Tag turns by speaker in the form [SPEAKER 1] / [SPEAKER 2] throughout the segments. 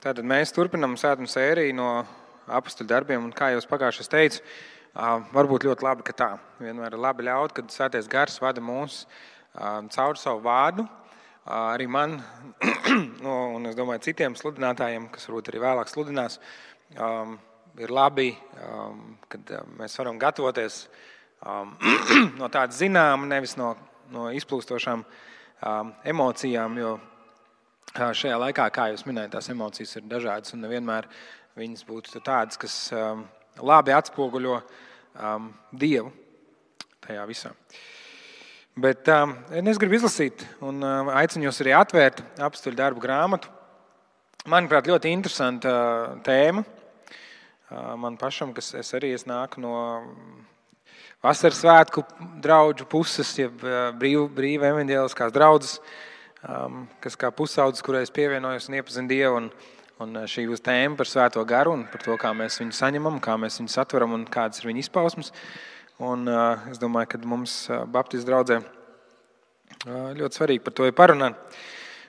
[SPEAKER 1] Tātad mēs turpinām svētuma sēriju no Apostoļu darbiem, un kā jau pagājušajā teicu, varbūt ļoti labi, ka tā. Vienmēr ir labi ļaut, kad Svētais Gars vada mūs caur savu vārdu. Arī man, un es domāju citiem sludinātājiem, kas varbūt arī vēlāk sludinās, ir labi, kad mēs varam gatavoties no tāda zināma, nevis no izplūstošām emocijām, jo šajā laikā, kā jūs minējat, tās emocijas ir dažādas un nevienmēr viņas būtu tādas, kas labi atspoguļo Dievu tajā visā. Bet es gribu izlasīt un aicinu jūs arī atvērt Apostoļu darbu grāmatu. Manuprāt, ļoti interesanta tēma. Man pašam, kas es nāku no vasaras svētku draudžu puses, jeb brīva evaņģēliskās draudzes, kas kā pusaudzes, kurai es pievienojos un iepazinu Dievu, un šī būs tēma par Svēto Garu un par to, kā mēs viņu saņemam, kā mēs viņu satveram un kādas ir viņa izpausmes. Un es domāju, ka mums Baptistu draudzē ļoti svarīgi par to ir parunāt.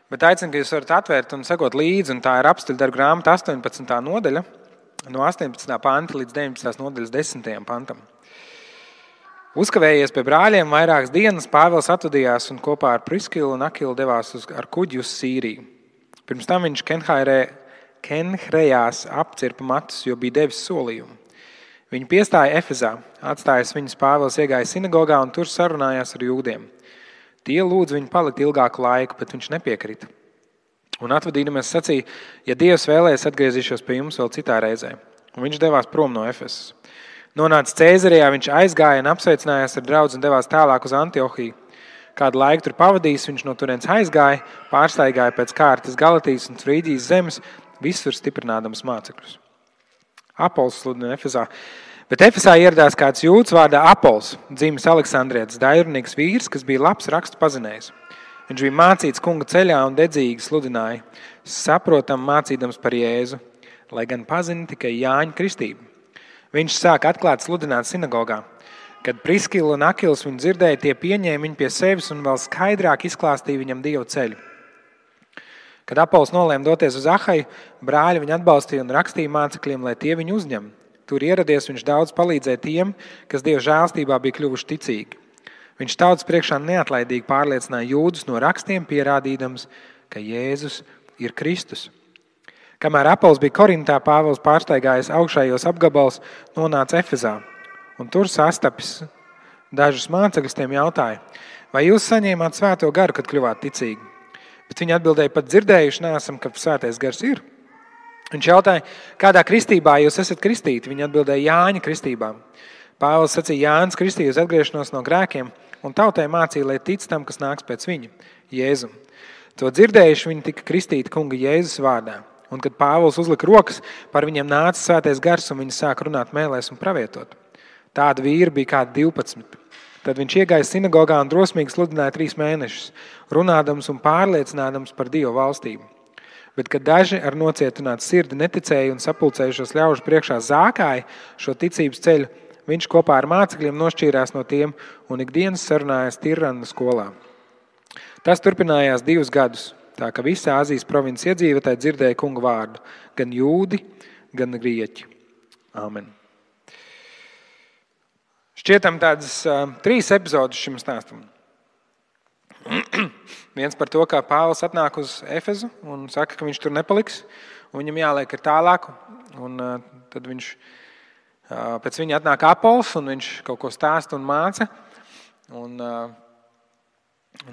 [SPEAKER 1] Bet aicinu, ka jūs varat atvērt un sekot līdzi, un tā ir Apostoļu darbu grāmata 18. nodaļa, no 18. panta līdz 19. nodaļas 10. pantam. Uzkavējies pie brāļiem vairākas dienas, Pāvils atvadījās un kopā ar Priskilu un Akilu devās ar kuģi uz Sīriju. Pirms tam viņš Kenhrejās apcirpa matus, jo bija devis solījumu. Viņi piestāja Efezā, atstājis viņus, Pāvils iegāja sinagogā un tur sarunājās ar jūdiem. Tie lūdz viņu palikt ilgāku laiku, bet viņš nepiekrita. Un atvadīdamies sacīja, ja Dievs vēlēs, atgriezīšos pie jums vēl citā reizē. Un viņš devās prom no Efesas. Nonācis Cēzarijā, viņš aizgāja un apsveicinājās ar draudzi un devās tālāk uz Antiohiju. Kādu laiku tur pavadījis, viņš no turienes aizgāja, pārstaigāja pēc kārtas Galatijas un Frīģijas zemes, visur stiprinādams mācekļus. Apols sludina Efesā. Bet Efesā ieradās kāds jūds vārdā Apols, dzimis Aleksandrietis, dairunīgs vīrs, kas bija labs rakstu pazinējs. Viņš bija mācīts kunga ceļā un dedzīgi sludināja, saprotam mācīdams par Jēzu, lai gan pazina tikai Jāņa kristību. Viņš sāka atklāt sludināt sinagogā. Kad Priskila un Akils viņu dzirdēja, tie pieņēma viņu pie sevis un vēl skaidrāk izklāstīja viņam Dieva ceļu. Kad Apols nolēma doties uz Ahaju, brāļi viņu atbalstīja un rakstīja mācekļiem, lai tie viņu uzņem. Tur ieradies, viņš daudz palīdzēja tiem, kas Dieva žēlstībā bija kļuvuši ticīgi. Viņš tautas priekšā neatlaidīgi pārliecināja jūdus no rakstiem, pierādīdams, ka Jēzus ir Kristus. Kamēr Apols bija Korintā, Pāvils pārstaigājis augšējos apgabals, nonāca Efezā. Un tur sastapis dažus mācekļus, tiem jautāja, vai jūs saņēmāt Svēto Garu, kad kļuvāt ticīgi? Bet viņi atbildēja, pat dzirdējuši neesam, ka Svētais Gars ir. Viņš jautāja, kādā kristībā jūs esat kristīti? Viņi atbildēja, Jāņa kristībā. Pāvils sacīja, Jānis kristīja uz atgriešanos no grēkiem, un tautai mācīja, lai tic tam, kas nāks pēc viņa, Jēzum. To dzirdējuši, viņi tika kristīti kunga Jēzus vārdā. Un kad Pāvils uzlika rokas, par viņiem nāca Svētais Gars, un viņi sāka runāt mēlēs un pravietot. Tāda vīra bija kādi 12. Tad viņš iegāja sinagogā un drosmīgi sludināja 3 mēnešus, runādams un pārliecinādams par Dievu valstību. Bet, kad daži ar nocietinātu sirdi neticēja un sapulcējušos ļaužu priekšā zākāja šo ticības ceļu, viņš kopā ar mācekļiem nošķīrās no tiem un ikdienas sarunājās Tirrana skolā. Tas turpinājās 2 gadus, tā ka visa Āzijas provinces iedzīvotāji dzirdēja kunga vārdu, gan jūdi, gan grieķi. Āmen. Šķietam tādas 3 epizodes šim stāstam. Viens par to, kā Pāvils atnāk uz Efezu un saka, ka viņš tur nepaliks, un viņam jāliek ir tālāk, un tad viņš, pēc viņa atnāk Apols, un viņš kaut ko stāsta un māca, un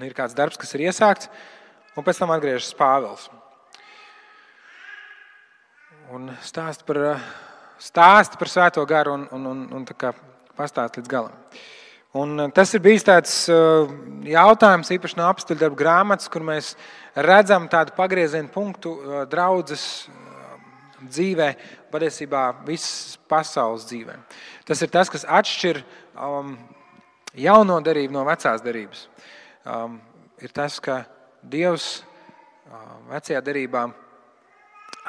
[SPEAKER 1] ir kāds darbs, kas ir iesākts, un pēc tam atgriežas Pāvils. Un stāsta par Svēto Garu un tā kā pastāst līdz galam. Un tas ir bijis tāds jautājums, īpaši no Apostoļu darbu grāmatas, kur mēs redzam tādu pagriezienu punktu draudzes dzīvē, patiesībā visas pasaules dzīvē. Tas ir tas, kas atšķir jauno derību no vecās derības. Ir tas, ka Dievs vecajā derībā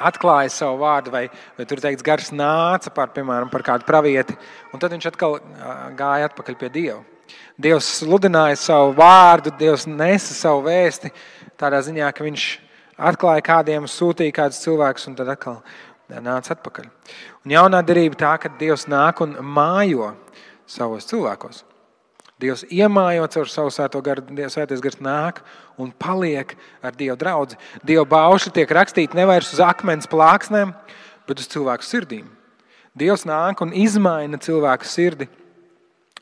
[SPEAKER 1] atklāja savu vārdu, vai tur teikts, Gars nāca piemēram, par kādu pravieti, un tad viņš atkal gāja atpakaļ pie Dieva. Dievs sludināja savu vārdu, Dievs nesa savu vēsti tādā ziņā, ka viņš atklāja kādiem, sūtīja kādus cilvēkus un tad atkal nāca atpakaļ. Un jaunā derība tā, ka Dievs nāk un mājo savos cilvēkos. Dievs iemājo caur savu svēto garu, svētais gars nāk un paliek ar Dieva draudzi. Dieva baušļi tiek rakstīti nevairs uz akmens plāksnēm, bet uz cilvēku sirdīm. Dievs nāk un izmaina cilvēku sirdi,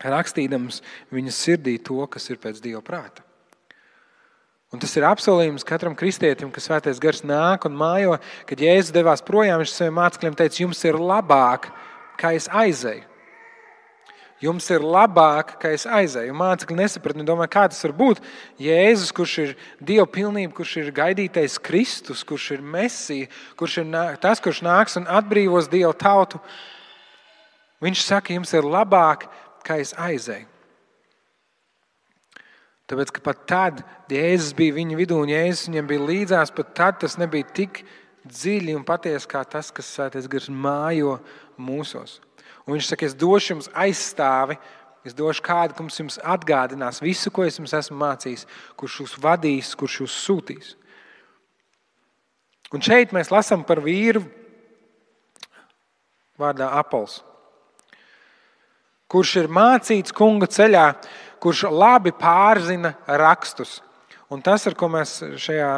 [SPEAKER 1] rakstīdams viņas sirdī to, kas ir pēc Dieva prāta. Un tas ir apsolījums katram kristietim, ka svētais gars nāk un mājo, kad Jēzus devās projām, viņš saviem mācekļiem teica, jums ir labāk, kā es aizeju. Jums ir labāk, ka es aizēju. Mācekļi nesapratni, domāju, kā tas var būt. Jēzus, kurš ir Dieva pilnība, kurš ir gaidītais Kristus, kurš ir Mesija, kurš ir tas, kurš nāks un atbrīvos Dieva tautu. Viņš saka, jums ir labāk, ka es aizēju. Tāpēc, ka pat tad Jēzus bija viņa vidū un Jēzus viņam bija līdzās, pat tad tas nebija tik dziļi un patiesi kā tas, kas svētais gars mājo mūsos. Un viņš saka, es došu jums aizstāvi, es došu kādu, kurš jums atgādinās visu, ko es jums esmu mācījis, kurš jūs vadīs, kurš jūs sūtīs. Un šeit mēs lasām par vīru vārdā Apols, kurš ir mācīts kunga ceļā, kurš labi pārzina rakstus. Un tas, ar ko mēs šajā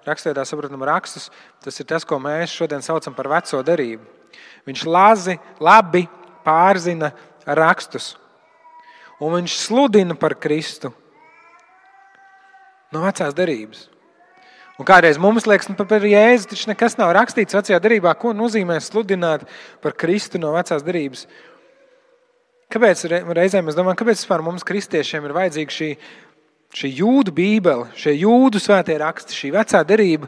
[SPEAKER 1] rakstveidā saprotam rakstus, tas ir tas, ko mēs šodien saucam par veco derību. Viņš labi pārzina rakstus. Un viņš sludina par Kristu no vecās derības. Un kādreiz mums liekas, par Jēzu taču nekas nav rakstīts vecajā derībā, ko nozīmē sludināt par Kristu no vecās derības. Kāpēc reizēm mēs domājam, kāpēc vispār mums kristiešiem ir vajadzīga šī jūdu bībele, šie jūdu svētie raksti, šī vecā derība?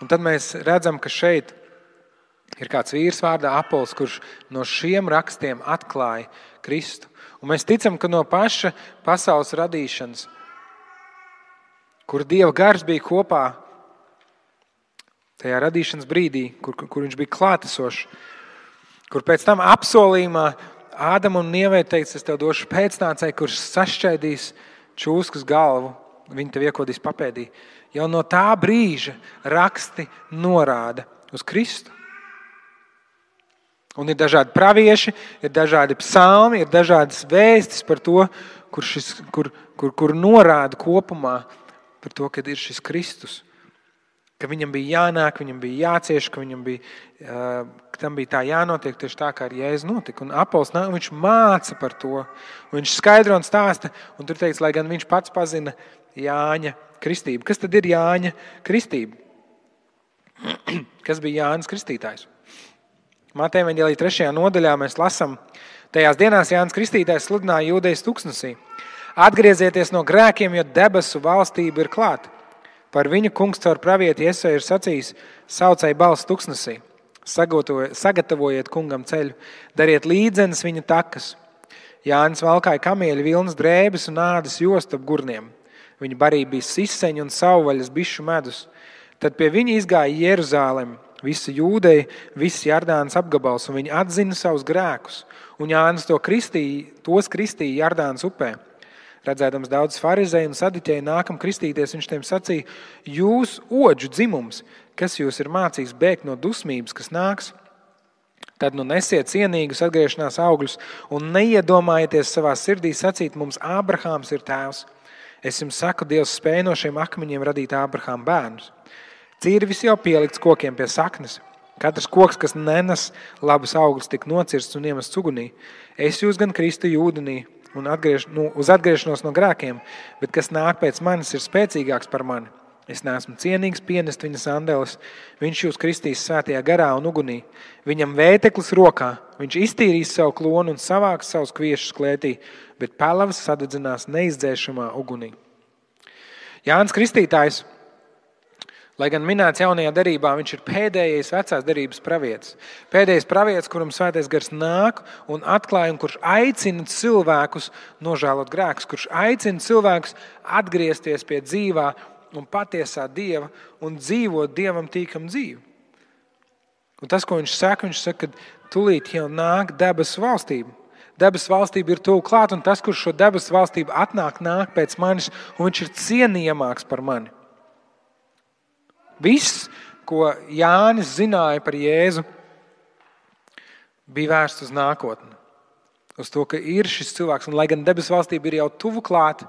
[SPEAKER 1] Un tad mēs redzam, ka šeit ir kāds vīrs vārdā Apols, kurš no šiem rakstiem atklāja Kristu. Un mēs ticam, ka no paša pasaules radīšanas, kur Dieva gars bija kopā, tajā radīšanas brīdī, kur viņš bija klātesošs, kur pēc tam apsolījumā Ādamam un Ievai teica, es tev došu pēcnācēju, kurš sašķaidīs čūskas galvu, viņi tev iekodīs papēdī. Jau no tā brīža raksti norāda uz Kristu. Un ir dažādi pravieši, ir dažādi psalmi, ir dažādas vēstis par to, kur norāda kopumā par to, kad ir šis Kristus. Ka viņam bija jānāk, viņam bija jācieš, ka tam bija tā jānotiek tieši tā, kā ar Jēzu notika. Un Apols nāk, viņš māca par to. Viņš skaidro un stāsta, un tur teica, lai gan viņš pats pazina Jāņa kristību. Kas tad ir Jāņa kristība? Kas bija Jānis Kristītājs? Mateja evaņģēlija 3. nodaļā mēs lasām, tajās dienās Jānis Kristītājs sludināja jūdejas tuksnesī. Atgriezieties no grēkiem, jo debesu valstība ir klāta. Par viņu kungs caur pravieti Jesaja ir sacījis, saucēja balss tuksnesī. Sagatavojiet kungam ceļu, dariet līdzenes viņa takas. Jānis valkāja kamieļu vilnas drēbes un ādas jostu ap gurniem. Viņa barība bija siseņu un savvaļas bišu medus. Tad pie viņa izgāja Jeruzālem, visa Jūdeja, viss Jardānas apgabals, un viņi atzina savus grēkus. Un Jānis tos kristīja Jardānas upē. Redzēdams daudz farizēju un sadiķēju nākam kristīties, viņš tiem sacīja, jūs odžu dzimums, kas jūs ir mācījis bēgt no dusmības, kas nāks, tad nu nesiet cienīgus atgriešanās augļus un neiedomājieties savā sirdī sacīt, mums Ābrahāms ir tēvs. Es jums saku, Dievs spēj no šiem akmeņiem radīt Ābrahāma bērnus. Cirvis jau pielikts kokiem pie saknes. Katrs koks, kas nenes labus augļus, tik nocirsts un iemests ugunī. Es jūs gan kristu ūdenī un uz atgriešanos no grēkiem, bet kas nāk pēc manis ir spēcīgāks par mani. Es neesmu cienīgs pienest viņa sandeles. Viņš jūs kristīs svētajā garā un ugunī. Viņam vēteklis rokā. Viņš iztīrīs savu klonu un savāks savus kviešus klētī, bet pelavas sadedzinās neizdzēšamā ugunī. Jānis Kristītājs, lai gan minēts jaunajā derībā, viņš ir pēdējais vecās derības pravietis. Pēdējais pravietis, kuram svētais gars nāk un atklāja, un kurš aicina cilvēkus nožēlot grēkus, kurš aicina cilvēkus atgriezties pie dzīvā un patiesā Dieva un dzīvot Dievam tīkam dzīvi. Un tas, ko viņš saka, ka tūlīt jau nāk debesu valstība. debesu valstība ir tuvu klāt, un tas, kurš šo debesu valstību nāk pēc manis, un viņš ir cienījamāks par mani. Viss, ko Jānis zināja par Jēzu, bija vērsts uz nākotni. Uz to, ka ir šis cilvēks, un lai gan debesu valstība ir jau tuvu klāt,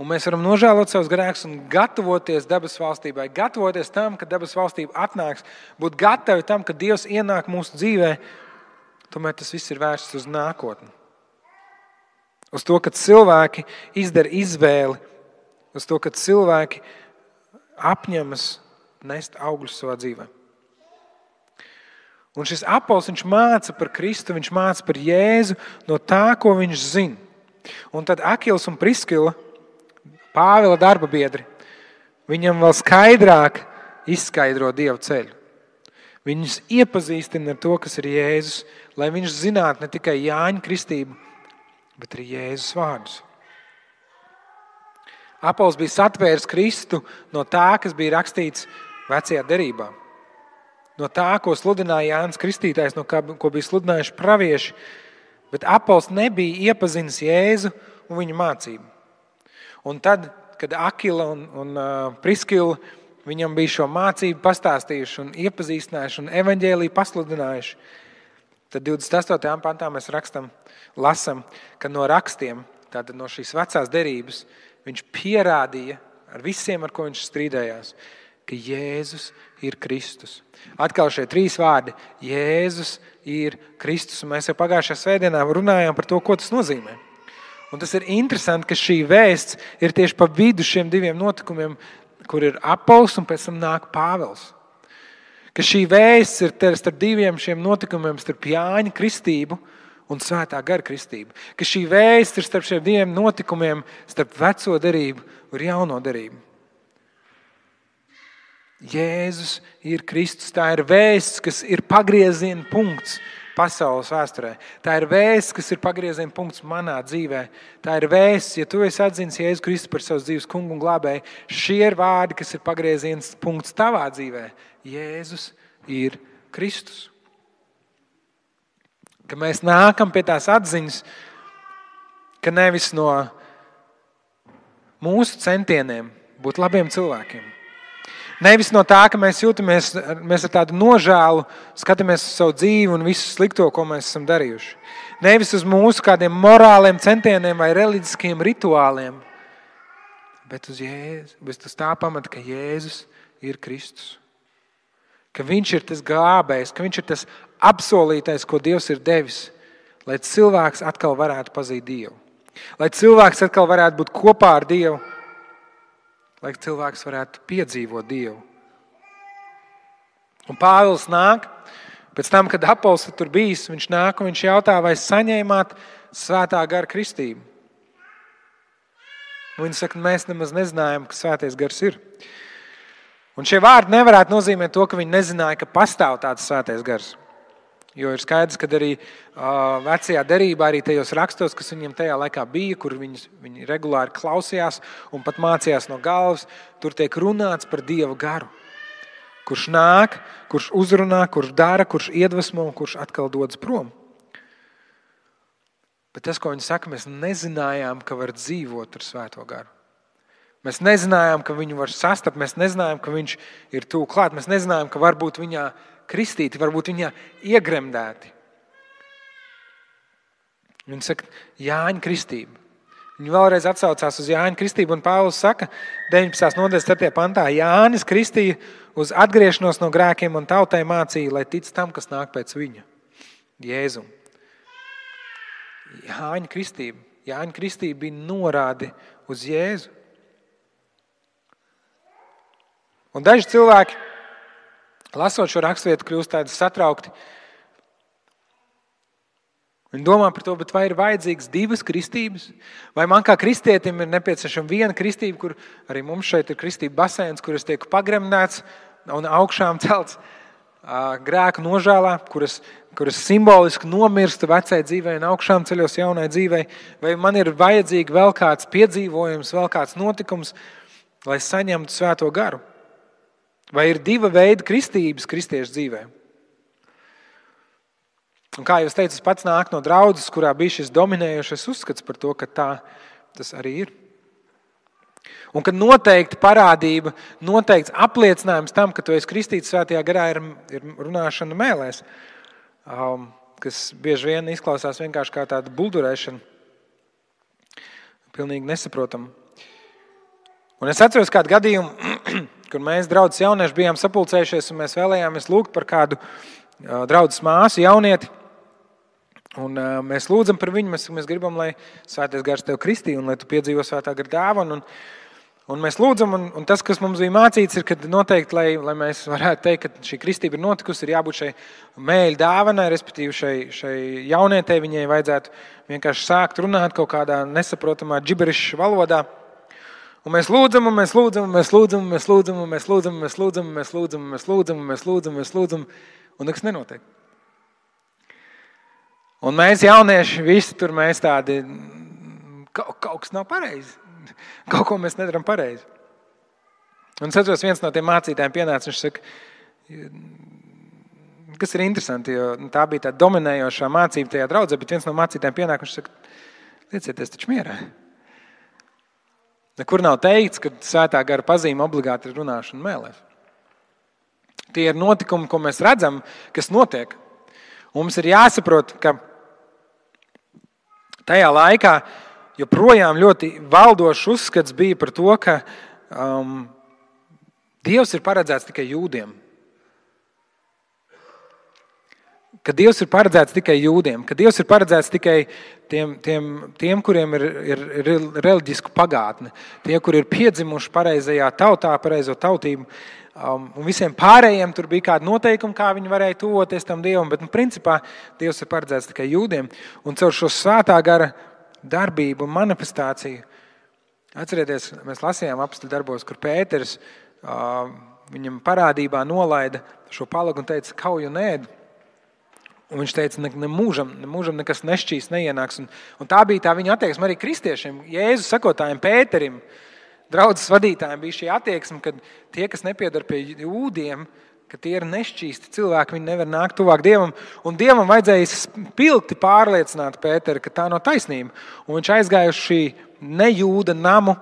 [SPEAKER 1] un mēs varam nožēlot savus grēkus un gatavoties debesu valstībai, gatavoties tam, ka debesu valstība atnāks, būt gatavi tam, ka Dievs ienāk mūsu dzīvē, tomēr tas viss ir vērsts uz nākotni. Uz to, ka cilvēki izdara izvēli, uz to, ka cilvēki apņemas nest augļus savā dzīvē. Un šis apols, viņš māca par Kristu, viņš māca par Jēzu no tā, ko viņš zina. Un tad Akils un Priskila, Pāvila darba biedri, viņam vēl skaidrāk izskaidro Dieva ceļu. Viņus iepazīstina ar to, kas ir Jēzus, lai viņš zinātu ne tikai Jāņa kristību, bet arī Jēzus vārdus. Apols bija satvēris Kristu no tā, kas bija rakstīts vecajā derībā. No tā, ko sludināja Jānis Kristītājs, no kā, ko bija sludinājuši pravieši, bet Apols nebija iepazinis Jēzu un viņa mācību. Un tad, kad Akila un Priskila viņam bija šo mācību pastāstījuši un iepazīstinājuši un evaņģēliju pasludinājuši, tad 28. pantā mēs lasam, ka no rakstiem, tātad no šīs vecās derības, viņš pierādīja ar visiem, ar ko viņš strīdējās, ka Jēzus ir Kristus. Atkal šie 3 vārdi – Jēzus ir Kristus. Un mēs jau pagājušajā svētdienā runājām par to, ko tas nozīmē. Un tas ir interesanti, ka šī vēsts ir tieši pa vidu šiem 2 notikumiem, kur ir Apols un pēc tam nāk Pāvils. Ka šī vēsts ir starp 2 šiem notikumiem, starp Jāņa kristību un Svētā gara kristību. Ka šī vēsts ir starp šiem 2 notikumiem, starp veco derību un jauno derību. Jēzus ir Kristus. Tā ir vēsts, kas ir pagrieziena punkts pasaules vēsturē. Tā ir vēsts, kas ir pagrieziena punkts manā dzīvē. Tā ir vēsts, ja tu esi atzinis Jēzu Kristu par savas dzīves kungu un glābēju, šie ir vārdi, kas ir pagrieziena punkts tavā dzīvē. Jēzus ir Kristus. Ka mēs nākam pie tās atziņas, ka nevis no mūsu centieniem būt labiem cilvēkiem, nevis no tā, ka mēs jūtamies, mēs ar tādu nožēlu skatāmies uz savu dzīvi un visu slikto, ko mēs esam darījuši. Nevis uz mūsu kādiem morāliem centieniem vai reliģiskiem rituāliem, bet uz Jēzu, bet uz tā pamata, ka Jēzus ir Kristus. Ka viņš ir tas glābējs, ka viņš ir tas apsolītais, ko Dievs ir devis, lai cilvēks atkal varētu pazīt Dievu. Lai cilvēks atkal varētu būt kopā ar Dievu, lai cilvēks varētu piedzīvot Dievu. Un Pāvils nāk, pēc tam, kad Apols tur bijis, viņš nāk un viņš jautā, vai saņēmāt Svētā gara kristību. Un viņi saka, mēs nemaz nezinājām, ka Svētais gars ir. Un šie vārdi nevarētu nozīmēt to, ka viņi nezināja, ka pastāv tāds Svētais gars. Jo ir skaidrs, ka arī vecajā derībā, arī tajos rakstos, kas viņiem tajā laikā bija, kur viņi regulāri klausījās un pat mācījās no galvas, tur tiek runāts par Dieva garu. Kurš nāk, kurš uzrunā, kurš dara, kurš iedvesmo un kurš atkal dodas prom. Bet tas, ko viņi saka, mēs nezinājām, ka var dzīvot ar Svēto garu. Mēs nezinājām, ka viņu var sastapt, mēs nezinājām, ka viņš ir tuvu klāt, mēs nezinājām, ka varbūt viņā kristīti, varbūt viņā iegremdēti. Viņi saka, Jāņa kristība. Viņi vēlreiz atsaucās uz Jāņa kristību, un Pāvils saka, 19. nodaļas 4. pantā, Jānis kristīja uz atgriešanos no grēkiem un tautai mācīja, lai tic tam, kas nāk pēc viņa, Jēzum. Jāņa kristība bija norāde uz Jēzu. Un daži cilvēki, lasot šo raksturvietu, kļūst tādi satraukti. Viņi domā par to, bet vai ir vajadzīgas 2 kristības? Vai man kā kristietim ir nepieciešama 1 kristība, kur arī mums šeit ir kristība baseins, kur es tieku pagremdēts un augšām celts grēku nožēlā, kuras simboliski nomirstu vecai dzīvei un augšām ceļos jaunai dzīvei? Vai man ir vajadzīgi vēl kāds piedzīvojums, vēl kāds notikums, lai saņemtu Svēto garu? Vai ir 2 veidi kristības kristiešu dzīvē? Un kā jūs teicat, pats nāk no draudzes, kurā bija šis dominējošais uzskats par to, ka tā tas arī ir. Un ka noteikti parādība, noteikts apliecinājums tam, ka tu esi kristīts svētajā garā, ir runāšana mēlēs, kas bieži vien izklausās vienkārši kā tāda buldurēšana, pilnīgi nesaprotama. Un es atceros kādu gadījumu, kur mēs draudzes jaunieši bijām sapulcējušies un mēs vēlējāmies lūgt par kādu draudzes māsu jaunieti. Un mēs lūdzam par viņu, mēs gribam, lai Svētais Gars tev kristī un lai tu piedzīvo Svētā Gara dāvanu. Un mēs lūdzam, un tas, kas mums bija mācīts, ir, ka noteikti, lai mēs varētu teikt, ka šī kristība ir notikusi, ir jābūt šai mēļu dāvanai, respektīvi šai jaunietei, viņai vajadzētu vienkārši sākt runāt kaut kādā nesaprotamā džiberišu valodā. Un mēs lūdzam, un mēs lūdzam, un mēs lūdzam, un mēs lūdzam, un mēs lūdzam, un mēs lūdzam, un mēs lūdzam, un mēs lūdzam, un mēs lūdzam, un mēs lūdzam, un nekas nenotiek. Un mēs jaunieši visi tur mēs tādi, kaut kas nav pareizi. Kaut ko mēs nedaram pareizi. Un es atceros, viens no tiem mācītājiem pienāca, viņš saka, kas ir interesanti, jo tā bija tā dominējošā mācība tajā draudzē, bet viens no mācītājiem pienāk, viņš saka, liecieties taču mierā. Nekur nav teikts, ka Svētā Gara pazīme obligāti ir runāšana mēlēs. Tie ir notikumi, ko mēs redzam, kas notiek. Un mums ir jāsaprot, ka tajā laikā joprojām ļoti valdošs uzskats bija par to, ka Dievs ir paredzēts tikai jūdiem. Ka Dievs ir paredzēts tikai jūdiem, ka Dievs ir paredzēts tikai tiem kuriem ir reliģisku pagātne, tie, kuri ir piedzimuši pareizajā tautā, pareizo tautību, un visiem pārējiem tur bija kādi noteikumi, kā viņi varēja tuvoties tam Dievam, bet principā Dievs ir paredzēts tikai jūdiem, un caur šo Svētā Gara darbību un manifestāciju. Atcerieties, mēs lasījām apostļu darbos, kur Pēters viņam parādībā nolaida šo palagu un teica, kauju un ēd. Un viņš teica, nemūžam nekas nešķīs, neienāks. Un tā bija tā viņa attieksme arī kristiešiem. Jēzus sekotājiem Pēterim, draudzes vadītājiem bija šī attieksme, ka tie, kas nepiedar pie jūdiem, ka tie ir nešķīsti cilvēki, viņi nevar nākt tuvāk Dievam. Un Dievam vajadzēja spilgti pārliecināt Pēteri, ka tā nav taisnība. Un viņš aizgāja uz šī nejūda namu,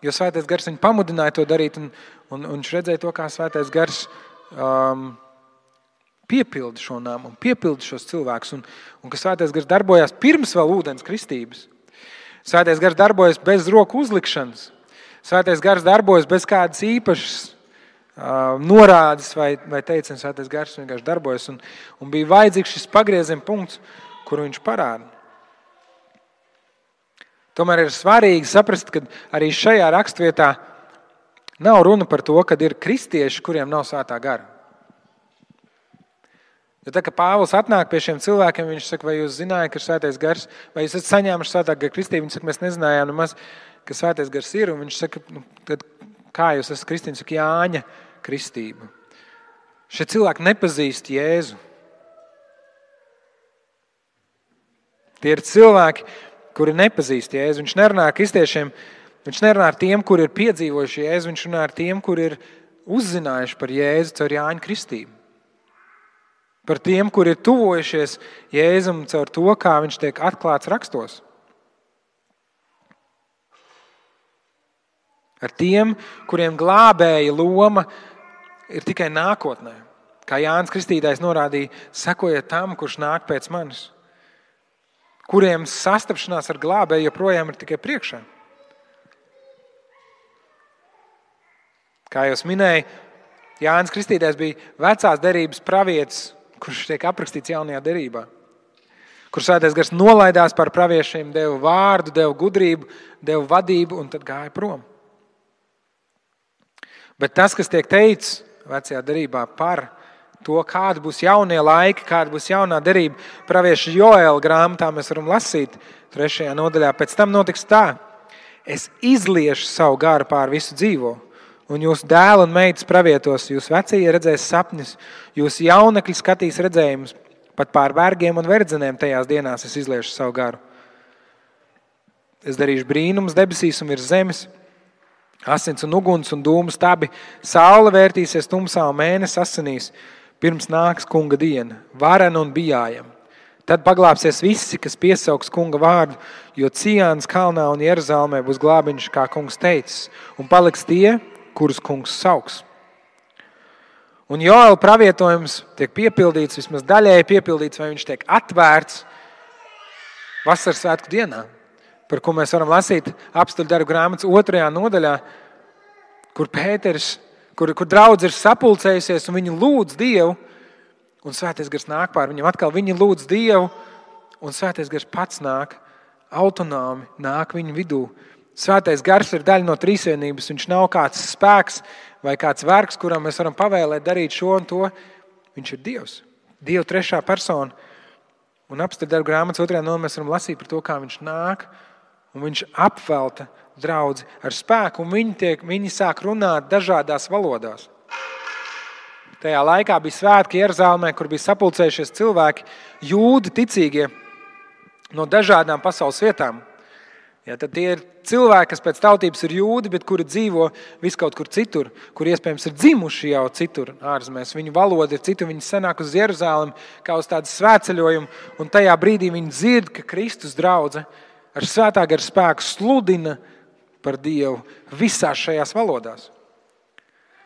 [SPEAKER 1] jo Svētais Gars viņu pamudināja to darīt. Un viņš redzēja to, kā Svētais Gars piepilda šo namu un piepilda šos cilvēkus. Un ka Svētais Gars darbojās pirms vēl ūdens kristības. Svētais Gars darbojas bez roku uzlikšanas. Svētais Gars darbojas bez kādas īpašas norādes vai teiciens. Svētais Gars vienkārši darbojas un bija vajadzīgs šis pagrieziena punkts, kuru viņš parāda. Tomēr ir svarīgi saprast, ka arī šajā rakstvietā nav runa par to, ka ir kristieši, kuriem nav Svētā Gara. Jo tā, ka Pāvils atnāk pie šiem cilvēkiem, viņš saka, vai jūs zinājāt, ka ir Svētais Gars, vai jūs esat saņēmuši Svētā Gara kristību? Viņš saka, mēs nezinājām nemaz, ka Svētais Gars ir, un viņš saka, tad kā jūs esat kristīni? Saka, Jāņa kristība. Šie cilvēki nepazīst Jēzu. Tie ir cilvēki, kuri nepazīst Jēzu. Viņš nerunā ar kristiešiem, viņš nerunā ar tiem, kuri ir piedzīvojuši Jēzu, viņš runā ar tiem, kuri ir uzzinājuši par Jēzu caur Jāņa kristību. Par tiem, kuri ir tuvojušies Jēzum caur to, kā viņš tiek atklāts rakstos. Ar tiem, kuriem glābēja loma ir tikai nākotnē. Kā Jānis Kristītājs norādīja, sekojiet tam, kurš nāk pēc manis. Kuriem sastapšanās ar glābēju joprojām ir tikai priekšā. Kā jau minēju, Jānis Kristītājs bija vecās derības pravietis, kurš tiek aprakstīts jaunajā derībā. Kur Svētais Gars nolaidās par praviešiem, deva vārdu, deva gudrību, deva vadību un tad gāja prom. Bet tas, kas tiek teikts vecajā derībā par to, kāda būs jaunie laiki, kāda būs jaunā derība, pravieša Joēla grāmatā mēs varam lasīt 3. nodaļā. Pēc tam notiks tā: es izliešu savu garu pār visu dzīvo, un jūsu dēli un meitas pravietos, jūs vecie redzēs sapņus, jūs jaunekļi skatīs redzējumus, pat pār vergiem un verdzenēm tajās dienās es izliešu savu garu. Es darīšu brīnumus debesīs un virs zemes, asins un uguns un dūmu stabi, saule vērtīsies tumsā un mēnesis asinīs, pirms nāks kunga diena, varena un bijājama. Tad paglāpsies visi, kas piesauks kunga vārdu, jo Cijānas kalnā un Jeruzalemē būs glābiņš, kā kungs teicis, un paliks tie, kurus kungs sauks. Un Joēla pravietojums tiek piepildīts, vismaz daļēji piepildīts, vai viņš tiek atvērts vasaras svētku dienā, par ko mēs varam lasīt Apstuļu darbu grāmatas 2. nodaļā, kur Pēters, kur draudze ir sapulcējusies un viņi lūdz Dievu, un Svētais Gars nāk pār viņam atkal. Viņi lūdz Dievu, un Svētais Gars pats nāk, autonomi nāk viņu vidū. Svētais Gars ir daļa no trīsvienības, viņš nav kāds spēks vai kāds vergs, kuram mēs varam pavēlēt darīt šo un to. Viņš ir Dievs, Dieva trešā persona. Un Apstuļu darbu grāmatas 2. nodaļā mēs varam lasīt par to, kā viņš nāk, un viņš apvelta draudzi ar spēku, un viņi sāk runāt dažādās valodās. Tajā laikā bija svētki Jeruzalemē, kur bija sapulcējušies cilvēki, jūdi ticīgie no dažādām pasaules vietām. Ja, tad tie ir cilvēki, kas pēc tautības ir jūdi, bet kuri dzīvo viskaut kur citur, kur iespējams ir dzimuši jau citur ārzemēs. Viņu valoda ir citur, viņi sanāk uz Jeruzalemi kā uz tādu svētceļojumu, un tajā brīdī viņi dzird, ka Kristus draudze ar svētā gara spēku sludina par Dievu visās šajās valodās.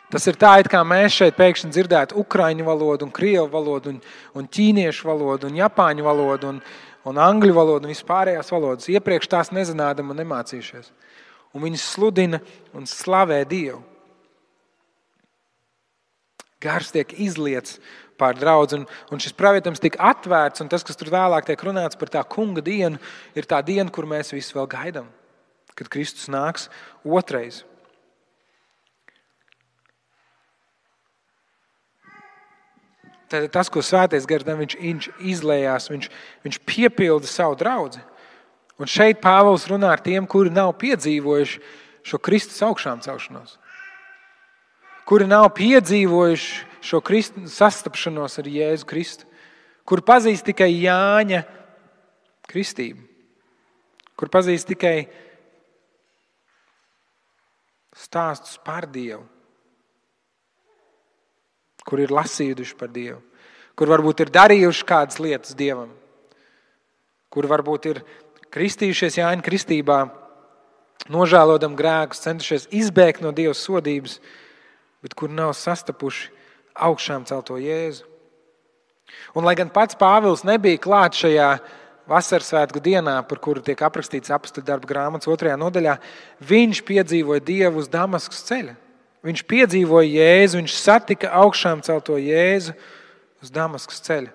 [SPEAKER 1] Tas ir tā, it kā mēs šeit pēkšņi dzirdētu ukraiņu valodu, un krievu valodu, un ķīniešu valodu, un japāņu valodu, un angļu valodu, un vispārējās valodas. Iepriekš tās nezinādam un nemācījušies. Un viņi sludina un slavē Dievu. Gars tiek izliets pār draudzi, un šis pravietojums tika atvērts, un tas, kas tur vēlāk tiek runāts par tā kunga dienu, ir tā diena, kur mēs visi vēl gaidām, kad Kristus nāks otrais. Tad tas, ko Svētais Gars, viņš izlējās, viņš piepilda savu draudzi. Un šeit Pāvils runā ar tiem, kuri nav piedzīvojuši šo Kristus augšām celšanos. Kuri nav piedzīvojuši šo sastapšanos ar Jēzu Kristu. Kuri pazīst tikai Jāņa kristību. Kur pazīst tikai stāstus par Dievu. Kur ir lasījuši par Dievu, kur varbūt ir darījuši kādas lietas Dievam, kur varbūt ir kristījušies Jāņa kristībā, nožēlodam grēkus, centušies izbēgt no Dieva sodības, bet kur nav sastapuši augšām celto Jēzu. Un lai gan pats Pāvils nebija klāt šajā vasaras svētku dienā, par kuru tiek aprakstīts Apstuļu darbu grāmatas 2. nodaļā, viņš piedzīvoja Dievu uz Damaskas ceļa. Viņš piedzīvoja Jēzu, viņš satika augšām celto Jēzu uz Damaskas ceļa.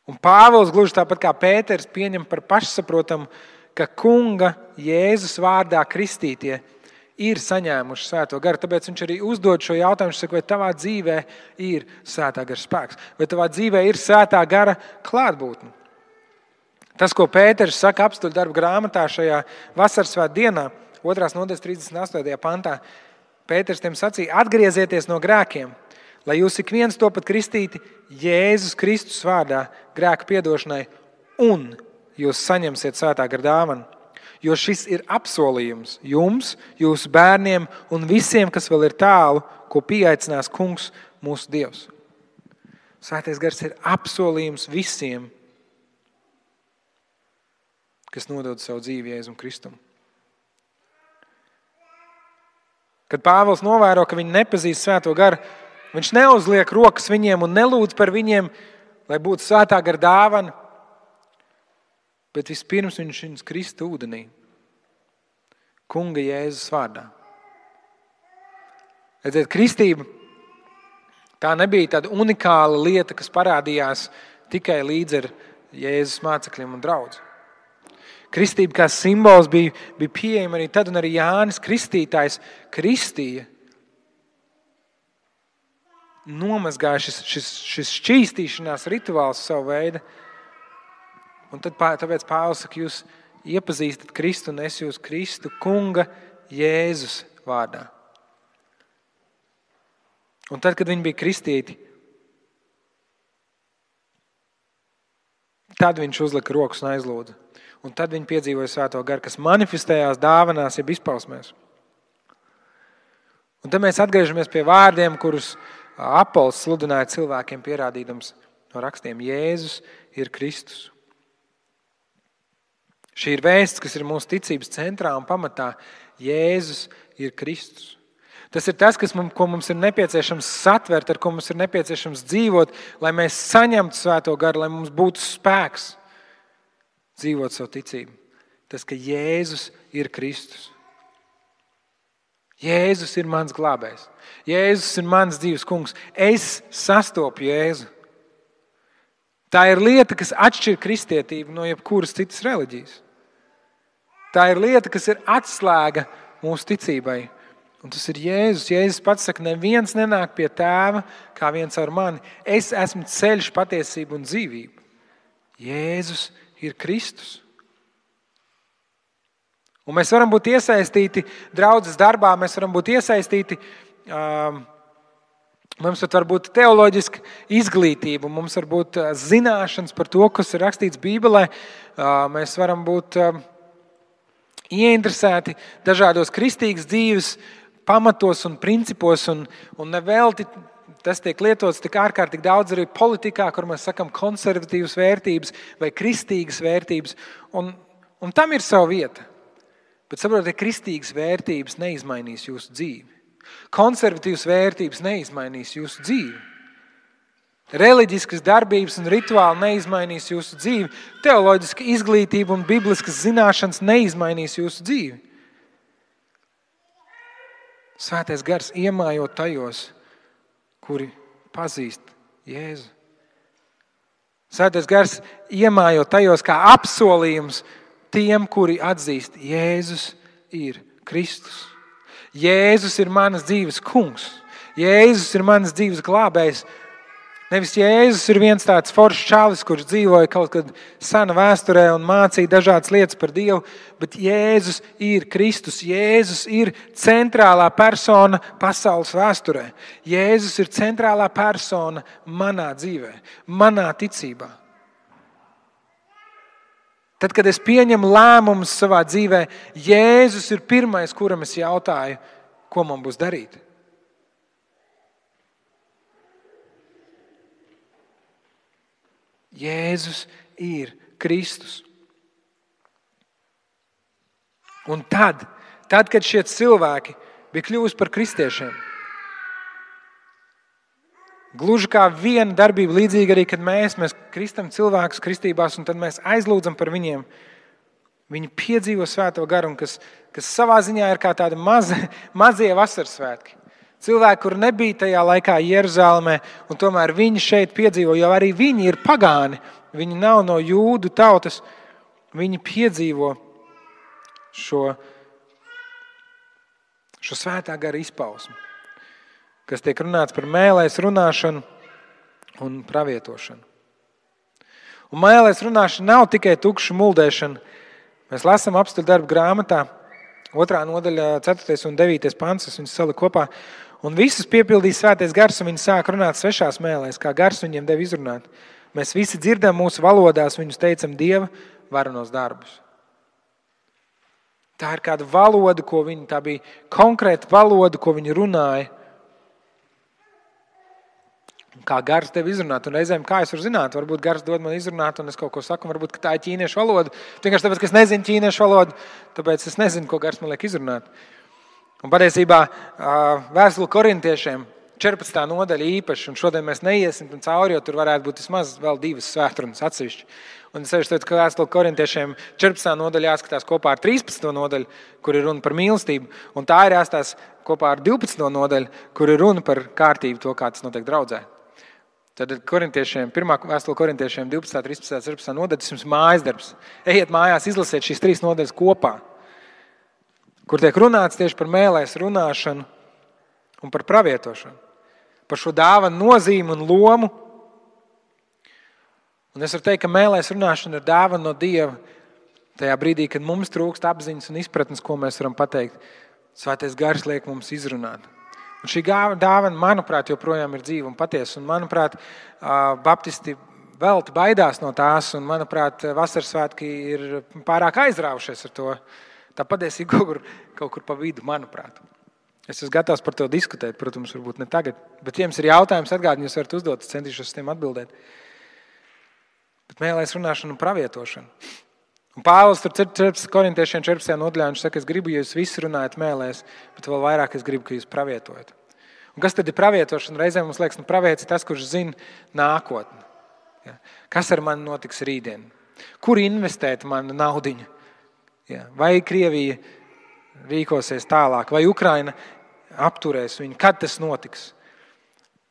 [SPEAKER 1] Un Pāvils, gluži tāpat kā Pēters, pieņem par pašsaprotamu, ka kunga Jēzus vārdā kristītie ir saņēmuši svēto garu. Tāpēc viņš arī uzdod šo jautājumu, viņš saka, vai tavā dzīvē ir svētā gara spēks, vai tavā dzīvē ir svētā gara klātbūtne. Tas, ko Pēters saka Apstuļu darbu grāmatā šajā vasaras svētku dienā, 2. nodaļas 38. pantā, Pēters tiem sacīja, atgriezieties no grēkiem, lai jūs ik viens topat kristīti Jēzus Kristus vārdā grēku piedošanai, un jūs saņemsiet svētā gara dāvanu. Jo šis ir apsolījums jums, jūsu bērniem un visiem, kas vēl ir tālu, ko pieaicinās kungs mūsu Dievs. Svētais Gars ir apsolījums visiem, kas nodod savu dzīvi Jēzum Kristum. Kad Pāvils novēro, ka viņi nepazīst svēto garu, viņš neuzliek rokas viņiem un nelūdz par viņiem, lai būtu svētā gara dāvana, bet vispirms viņš viņus krista ūdenī, kunga Jēzus vārdā. Redziet, kristība tā nebija tāda unikāla lieta, kas parādījās tikai līdz ar Jēzus mācekļiem un draudzi. Kristība kā simbols bija pieejama arī tad, un arī Jānis Kristītājs kristīja. Nomazgāja šis šķīstīšanās rituāls savu veidu. Un tāpēc Pāvils saka, jūs iepazīstat Kristu un es jūs Kristu kunga Jēzus vārdā. Un tad, kad viņi bija kristīti, tad viņš uzlika rokas un aizlūdza. Un tad viņi piedzīvoja svēto garu, kas manifestējās dāvanās, jeb izpausmēs. Un tad mēs atgriežamies pie vārdiem, kurus Apols sludināja cilvēkiem, pierādīdams no rakstiem. Jēzus ir Kristus. Šī ir vēsts, kas ir mūsu ticības centrā un pamatā. Jēzus ir Kristus. Tas ir tas, ko mums ir nepieciešams satvert, ar ko mums ir nepieciešams dzīvot, lai mēs saņemtu Svēto Garu, lai mums būtu spēks dzīvot savu ticību. Tas, ka Jēzus ir Kristus. Jēzus ir mans glābējs. Jēzus ir mans dzīves kungs. Es sastopu Jēzu. Tā ir lieta, kas atšķir kristietību no jebkuras citas reliģijas. Tā ir lieta, kas ir atslēga mūsu ticībai. Un tas ir Jēzus. Jēzus pats saka, neviens nenāk pie Tēva kā viens ar mani. Es esmu ceļš, patiesība un dzīvība. Jēzus ir Kristus. Un mēs varam būt iesaistīti draudzes darbā, mēs varam būt iesaistīti, mums var būt teoloģiska izglītība, mums var būt zināšanas par to, kas ir rakstīts Bībelē, mēs varam būt ieinteresēti dažādos kristīgas dzīves pamatos un principos, un nevelti tas tiek lietots tik ārkārtīgi daudz arī politikā, kur mēs sakam konservatīvas vērtības vai kristīgas vērtības, un tam ir sava vieta. Bet saprotiet, kristīgas vērtības neizmainīs jūsu dzīvi. Konservatīvas vērtības neizmainīs jūsu dzīvi. Reliģiskas darbības un rituāli neizmainīs jūsu dzīvi. Teoloģiska izglītība un bibliskas zināšanas neizmainīs jūsu dzīvi. Svētais gars iemājo tajos, kuri pazīst Jēzu. Svētais gars iemājo tajos kā apsolījums tiem, kuri atzīst, Jēzus ir Kristus. Jēzus ir manas dzīves kungs. Jēzus ir manas dzīves glābējs. Nevis Jēzus ir viens tāds foršs čalis, kurš dzīvoja kaut kad sena vēsturē un mācīja dažādas lietas par Dievu, bet Jēzus ir Kristus. Jēzus ir centrālā persona pasaules vēsturē. Jēzus ir centrālā persona manā dzīvē, manā ticībā. Tad, kad es pieņemu lēmumus savā dzīvē, Jēzus ir pirmais, kuram es jautāju, ko man būs darīt. Jēzus ir Kristus. Un tad, kad šie cilvēki bija kļuvusi par kristiešiem, gluži kā viena darbība līdzīga arī, kad mēs kristam cilvēkus kristībās un tad mēs aizlūdzam par viņiem. Viņi piedzīvo Svēto garu, kas savā ziņā ir kā tādi mazie vasaras svētki. Cilvēki, kur nebija tajā laikā Jeruzālēmē, un tomēr viņi šeit piedzīvo, jo arī viņi ir pagāni. Viņi nav no jūdu tautas. Viņi piedzīvo šo Svētā gara izpausmi, kas tiek runāts par mēlēs runāšanu un pravietošanu. Un mēlēs runāšana nav tikai tukša muldēšana. Mēs lasām apstuļu darbu grāmatā, 2. nodaļa, 4. un 9. pants, es viņus saliku kopā. Un visus piepildīja Svētais gars, un viņi sāk runāt svešās mēlēs, kā gars viņiem deva izrunāt. Mēs visi dzirdam mūsu valodās, viņus teicam Dieva varenos darbus. Tā ir kāda valoda, tā bija konkrēta valoda, ko viņi runāja. Kā gars tev izrunāt, un reizēm kā es varu zināt, varbūt gars dod man izrunāt, un es kaut ko saku, varbūt, ka tā ir ķīniešu valoda. Vienkārši tāpēc, ka es nezinu ķīniešu valodu, tāpēc es nezinu, ko gars man liek izrunāt. Un patiesībā vēstule korintiešiem 14. nodaļa īpaši, un šodien mēs neiesim cauri, jo tur varētu būt vismaz vēl 2 svētrunas atsevišķi. Un es sevišķi teicu, ka vēstule korintiešiem 14. nodaļa jāskatās kopā ar 13. nodaļu, kur ir runa par mīlestību, un tā ir jāskatās kopā ar 12. nodaļu, kur ir runa par kārtību, to, kā tas notiek draudzē. Tad korintiešiem, 1. vēstule korintiešiem 12, 13, 14 nodaļas, tas jums mājas darbs. Ejiet mājās, izlasiet šīs 3 nodaļas kopā, kur tiek runāts tieši par mēlēs runāšanu un par pravietošanu, par šo dāvanu nozīmi un lomu. Un es varu teikt, ka mēlēs runāšana ir dāvana no Dieva tajā brīdī, kad mums trūkst apziņas un izpratnes, ko mēs varam pateikt. Svētais gars liek mums izrunāt. Un šī dāvana, manuprāt, joprojām ir dzīva un patiesa. Un, manuprāt, baptisti velti baidās no tās. Un, manuprāt, vasaras svētki ir pārāk aizrāvušies ar to. Tā patiesība kaut kur pa vidu, manuprāt. Es esmu gatavs par to diskutēt, protams, varbūt ne tagad. Bet, ja jums ir jautājums, atgādini, jūs varat uzdot, es centīšos uz tiem atbildēt. Bet mēlēs runāšanu un pravietošanu. Un Pāvils tur 14. korintiešiem 14. nodaļā viņš saka, es gribu, ja jūs visi runājat mēlēs, bet vēl vairāk es gribu, ka jūs pravietojat. Un kas tad ir pravietošana? Reizēm mums liekas, pravietis tas, kurš zina nākotni. Ja. Kas ar mani notiks rītdien? Kur investēt manu naudiņu? Ja. Vai Krievija rīkosies tālāk, vai Ukraina apturēs viņu? Kad tas notiks?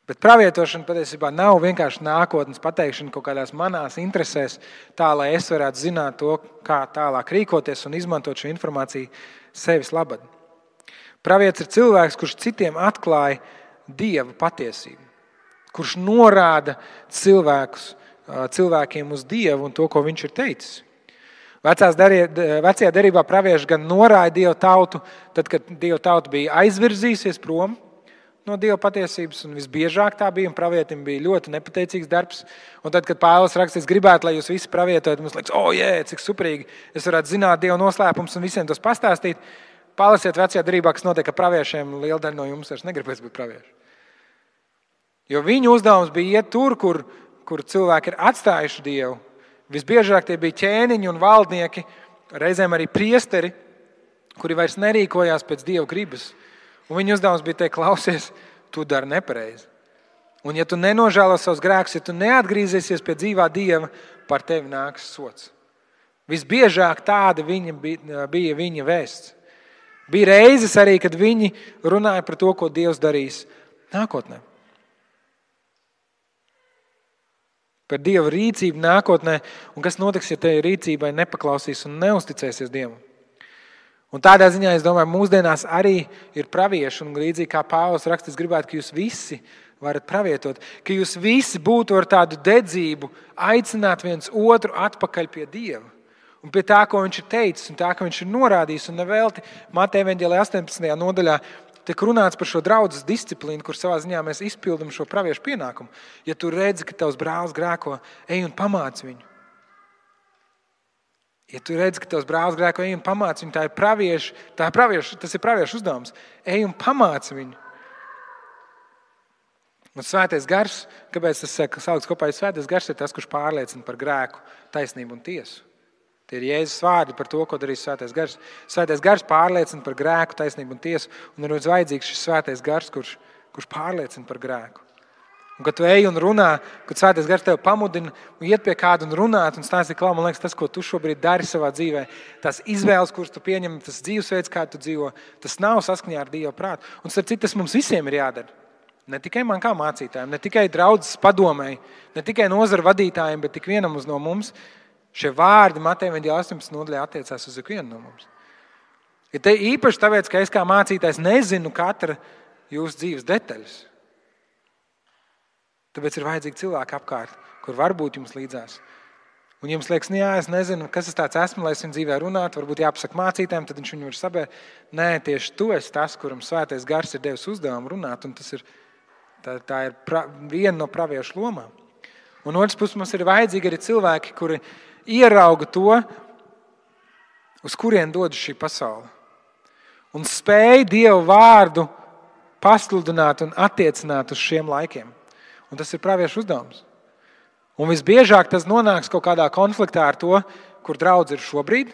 [SPEAKER 1] Bet pravietošana patiesībā nav vienkārši nākotnes pateikšana kaut kādās manās interesēs, tā, lai es varētu zināt to, kā tālāk rīkoties un izmantot šo informāciju sevis labad. Pravietis ir cilvēks, kurš citiem atklāja Dieva patiesību, kurš norāda cilvēkiem uz Dievu un to, ko viņš ir teicis. Vecajā derībā pravieši gan norāja Dieva tautu, tad, kad Dieva tauta bija aizvirzījusies prom no Dieva patiesības, un visbiežāk tā bija, un pravietim bija ļoti nepateicīgs darbs. Un tad, kad Pāvils raksta, es gribētu, lai jūs visi pravietojat, mums liekas, cik superīgi, es varētu zināt Dieva noslēpumus un visiem tos pastāstīt. Palasiet vecajā derībā, kas notiek ar praviešiem, liela daļa no jums vairs negribēs būt pravieši. Jo viņu uzdevums bija iet tur, kur cilvēki ir atstājuši Dievu. Visbiežāk tie bija ķēniņi un valdnieki, reizēm arī priesteri, kuri vairs nerīkojās pēc Dieva gribas. Un viņa uzdevums bija teikt, klausies, tu dari nepareizi. Un ja tu nenožēlo savus grēkus, ja tu neatgriezīsies pie dzīvā Dieva, par tevi nāks sots. Visbiežāk tāda bija viņa vēsts. Bija reizes arī, kad viņi runāja par to, ko Dievs darīs nākotnē. Par Dieva rīcību nākotnē un kas notiks, ja te rīcībai nepaklausīs un neusticēsies Dievam. Un tādā ziņā, es domāju, mūsdienās arī ir pravieši, un līdzīgi kā Pāvils raksta, es gribētu, ka jūs visi varat pravietot, ka jūs visi būtu ar tādu dedzību aicināt viens otru atpakaļ pie Dieva. Un pie tā, ko viņš ir teicis, un tā, ko viņš ir norādījis, un nevelti Mateja evaņģēlijā 18. nodaļā tiek runāts par šo draudzes disciplīnu, kur savā ziņā mēs izpildam šo praviešu pienākumu. Ja tu redzi, ka tavs brālis grēko, ej un pamāc viņu. Ja tu redzi, ka tavs brālis grēko, ej un pamāc viņu, tas ir praviešu uzdevums. Ej un pamāc viņu. Un svētais gars, kāpēc tas saukts kopā, svētais gars ir tas, kurš pārliecina par grēku, taisnību un tiesu. Tie ir Jēzus vārdi par to, ko darīs svētais gars. Svētais gars pārliecina par grēku, taisnību un tiesu, un ir vajadzīgs šis svētais gars, kurš pārliecina par grēku. Un, kad tu ej un runā, kad svētais gars tevi pamudina un iet pie kāda un runāt un stāsti klāt, man liekas, tas, ko tu šobrīd dari savā dzīvē, tās izvēles, kuras tu pieņem, tas dzīvesveids, kā tu dzīvo, tas nav saskaņā ar Dieva prātu. Un starp citu, tas mums visiem ir jādara. Ne tikai man kā mācītājiem, ne tikai draudzes padomēji, ne tikai nozaru vadītājiem, bet tik vienam no mums. Šie vārdi Mateja evaņģēlijā 18. nodaļā attiecās uz ikvienu no mums. Ja te īpaši tāpēc, ka es kā mācītājs nezinu katra jūsu dzīves detaļas. Tāpēc ir vajadzīgi cilvēki apkārt, kur var būt jums līdzās. Un jums liekas, es nezinu, kas es tāds esmu, lai es viņu dzīvē runātu, varbūt jāpasaka mācītājiem, tad viņš viņu var sabērt. Nē, tieši tu esi tas, kuram svētais gars ir devis uzdevumu runāt, un tas ir, tā ir viena no praviešu lomām. Un otrs puses mums ir vajadzīgi arī cilvēki, kuri ierauga to, uz kurien dodas šī pasaule. Un spēj Dieva vārdu pasludināt un attiecināt uz šiem laikiem. Un tas ir praviešu uzdevums. Un visbiežāk tas nonāks kaut kādā konfliktā ar to, kur draudz ir šobrīd.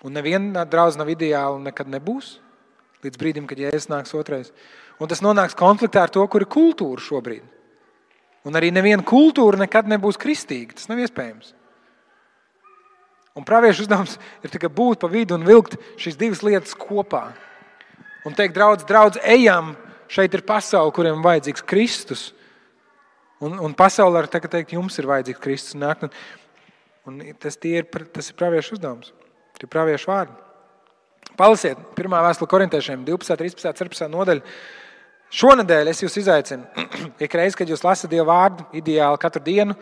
[SPEAKER 1] Un neviena draudz nav ideāla un nekad nebūs. Līdz brīdim, kad Jēzus nāks otrais. Un tas nonāks konfliktā ar to, kur ir kultūra šobrīd. Un arī neviena kultūra nekad nebūs kristīga. Tas nav iespējams. Un praviešu uzdevums ir tikai būt pa vidu un vilkt šīs divas lietas kopā. Un teikt, draudz, ejam, šeit ir pasaule, kuriem vajadzīgs Kristus. Un pasaulē ar teikt, jums ir vajadzīgs Kristus. Un tas ir praviešu uzdevums. Tie ir praviešu vārdi. Palasiet 1. vēstule korintiešiem 12, 13, 14 nodaļa. Šonedēļ es jūs izaicinu. Ikreiz, kad jūs lasat Dieva vārdu, ideāli katru dienu,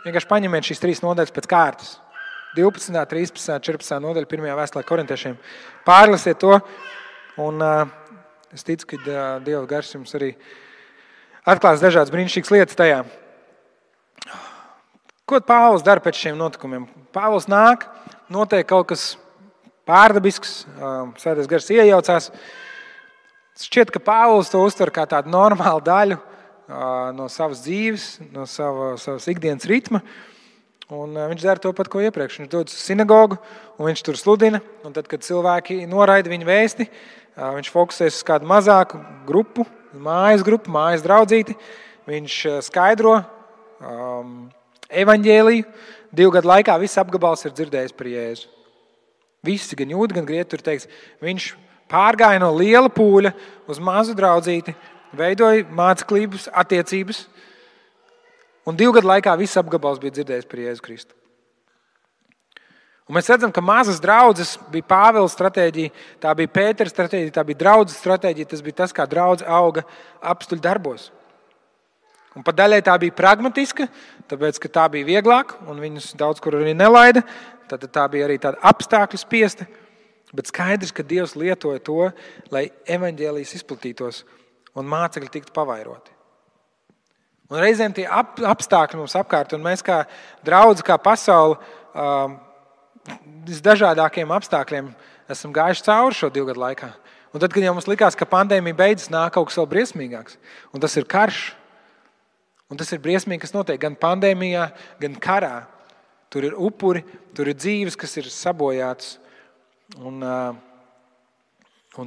[SPEAKER 1] vienkārši paņemiet šīs 3 nodaļas pēc kārtas. 12, 13, 14 nodaļa 1. vēstulē korintiešiem. Pārlasiet to. Un es ticu, ka Dieva gars jums arī atklās dažādas brīnišķīgas lietas tajā. Ko Pāvils dara pēc šiem notikumiem? Pāvils nāk, notiek kaut kas pārdabisks, svētais gars iejaucās. Šķiet, ka Pāvils to uztver kā tādu normālu daļu no savas dzīves, no savas ikdienas ritma. Un viņš dara to pat, ko iepriekš. Viņš dodas uz sinagogu, un viņš tur sludina. Un tad, kad cilvēki noraida viņa vēsti, viņš fokusēs uz kādu mazāku grupu, mājas draudzīti. Viņš skaidro evaņģēliju. 2 gadu laikā viss apgabals ir dzirdējis par Jēzu. Visi, gan jūdi, gan grieķi, tur teiks, viņš pārgāja no liela pūļa uz mazu draudzīti, veidoja māceklības, attiecības. Un 2 gadu laikā viss apgabals bija dzirdējis par Jēzu Kristu. Un mēs redzam, ka mazas draudzes bija Pāvila stratēģija, tā bija Pētera stratēģija, tā bija draudzes stratēģija, tas bija tas, kā draudze auga apstuļu darbos. Un pa daļai tā bija pragmatiska, tāpēc, ka tā bija vieglāk, un viņus daudz kur arī nelaida, tad tā bija arī tāda apstākļu spiesta, bet skaidrs, ka Dievs lietoja to, lai evaņģēlijs izplatītos un mācekļi tiktu pavairoti. Un reizēm tie apstākļi mums apkārt, un mēs kā draudzi, kā pasauli, visdažādākiem apstākļiem esam gājuši cauri šo 2 gadu laikā. Un tad, kad jau mums likās, ka pandēmija beidzas, nāk kaut kas vēl briesmīgāks. Un tas ir karš. Un tas ir briesmīgi, kas notiek gan pandēmijā, gan karā. Tur ir upuri, tur ir dzīves, kas ir sabojātas. Un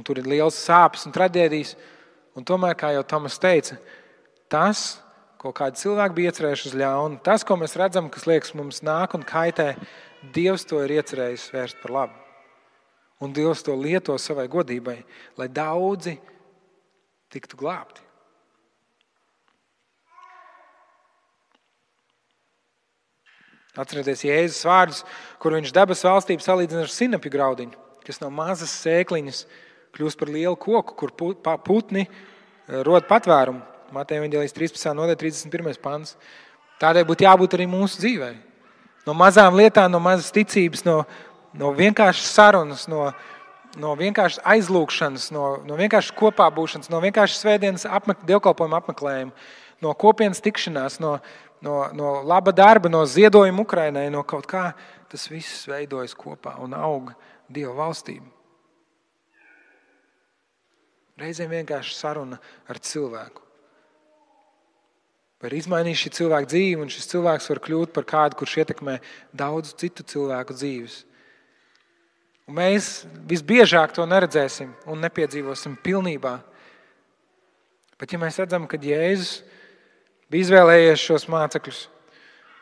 [SPEAKER 1] tur ir liels sāpes un traģēdijas. Un tomēr, kā jau Tomas teica, tas, ko kādi cilvēki bija iecerējuši uz ļaunu, tas, ko mēs redzam, kas liekas mums nāk un kaitē, Dievs to ir iecerējis vērst par labu. Un Dievs to lieto savai godībai, lai daudzi tiktu glābti. Atcerieties Jēzus vārdus, kur viņš dabas valstību salīdzina ar sinapju graudiņu, kas no mazas sēkliņas kļūst par lielu koku, kur putni rod patvērumu. Mateja evaņģēlijas 13. nodaļa 31. pants. Tādēļ būtu jābūt arī mūsu dzīvē. No mazām lietām, no mazas ticības, no vienkāršas sarunas, no vienkāršas aizlūkšanas, no vienkāršas kopā būšanas, no vienkāršas svētdienas dievkalpojuma apmeklējuma, no kopienas tikšanās, no laba darba, no ziedojuma Ukrainai, no kaut kā, tas viss veidojas kopā un aug Dieva valstība. Reizēm vienkārši saruna ar cilvēku. Var izmainīt šī cilvēka dzīvi, un šis cilvēks var kļūt par kādu, kurš ietekmē daudzu citu cilvēku dzīves. Un mēs visbiežāk to neredzēsim un nepiedzīvosim pilnībā. Bet ja mēs redzam, ka Jēzus bija izvēlējies šos mācekļus,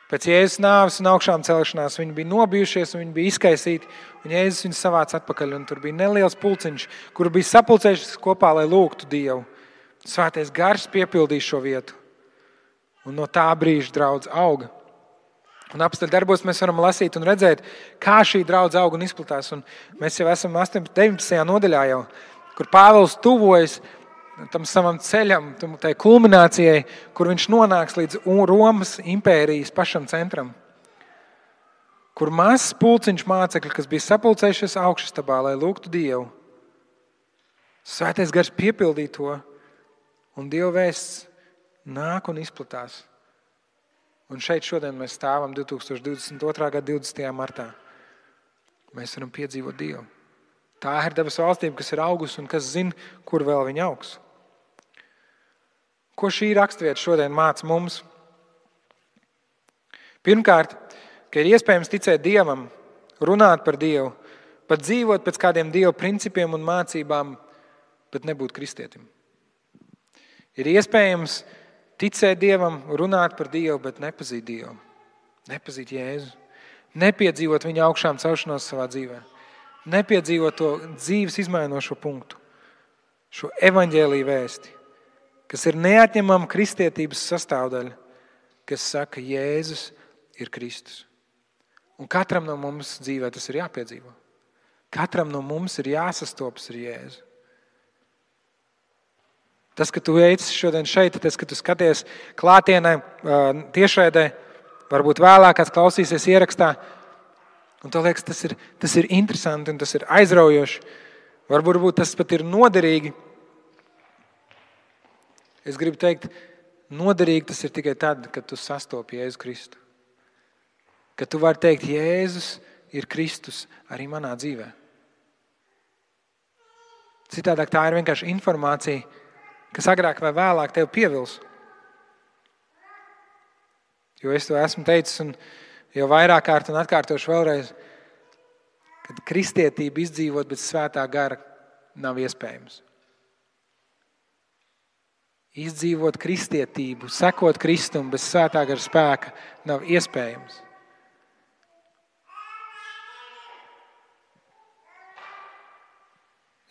[SPEAKER 1] pēc Jēzus nāves un augšām celšanās viņi bija nobijušies un viņi bija izkaisīti, un Jēzus viņus savāc atpakaļ, un tur bija neliels pulciņš, kur bija sapulcējušies kopā, lai lūgtu Dievu. Svētais Gars piepildīja šo vietu. Un no tā brīža draudze auga. Un apstuļu darbos mēs varam lasīt un redzēt, kā šī draudze auga un izplatās. Un mēs jau esam 19. nodaļā jau, kur Pāvils tuvojas tam savam ceļam, tai kulminācijai, kur viņš nonāks līdz Romas impērijas pašam centram. Kur mazs pulciņš mācekļi, kas bija sapulcējušies augšastabā, lai lūgtu Dievu. Svētais Gars piepildīja to, un Dieva vēsts nāk un izplatās. Un šeit šodien mēs stāvam 2022. gada 20. martā. Mēs varam piedzīvot Dievu. Tā ir dabas valstība, kas ir augusi un kas zina, kur vēl viņa augs. Ko šī rakstvieta šodien māca mums? Pirmkārt, ka ir iespējams ticēt Dievam, runāt par Dievu, pat dzīvot pēc kādiem Dieva principiem un mācībām, bet nebūt kristietim. Ir iespējams ticēt Dievam, runāt par Dievu, bet nepazīt Dievu. Nepazīt Jēzu. Nepiedzīvot viņa augšām celšanos savā dzīvē. Nepiedzīvot to dzīves izmainošo punktu. Šo evaņģēliju vēsti, kas ir neatņemama kristietības sastāvdaļa, kas saka, Jēzus ir Kristus. Un katram no mums dzīvē tas ir jāpiedzīvo. Katram no mums ir jāsastopas ar Jēzu. Tas, ka tu esi šodien šeit, tas, ka tu skaties klātienē, tiešraidē, varbūt vēlāk kāds klausīsies ierakstā, un tev liekas, tas ir interesanti un tas ir aizraujoši. Varbūt tas pat ir noderīgi. Es gribu teikt, noderīgi tas ir tikai tad, kad tu sastopi Jēzu Kristu. Kad tu vari teikt, Jēzus ir Kristus arī manā dzīvē. Citādāk tā ir vienkārši informācija, kas agrāk vai vēlāk tev pievils. Jo es to esmu teicis, un Jo vairāk kārt un atkārtošu vēlreiz, kad kristietība izdzīvot bez svētā gara nav iespējams. Izdzīvot kristietību, sekot Kristum bez svētā gara spēka nav iespējams.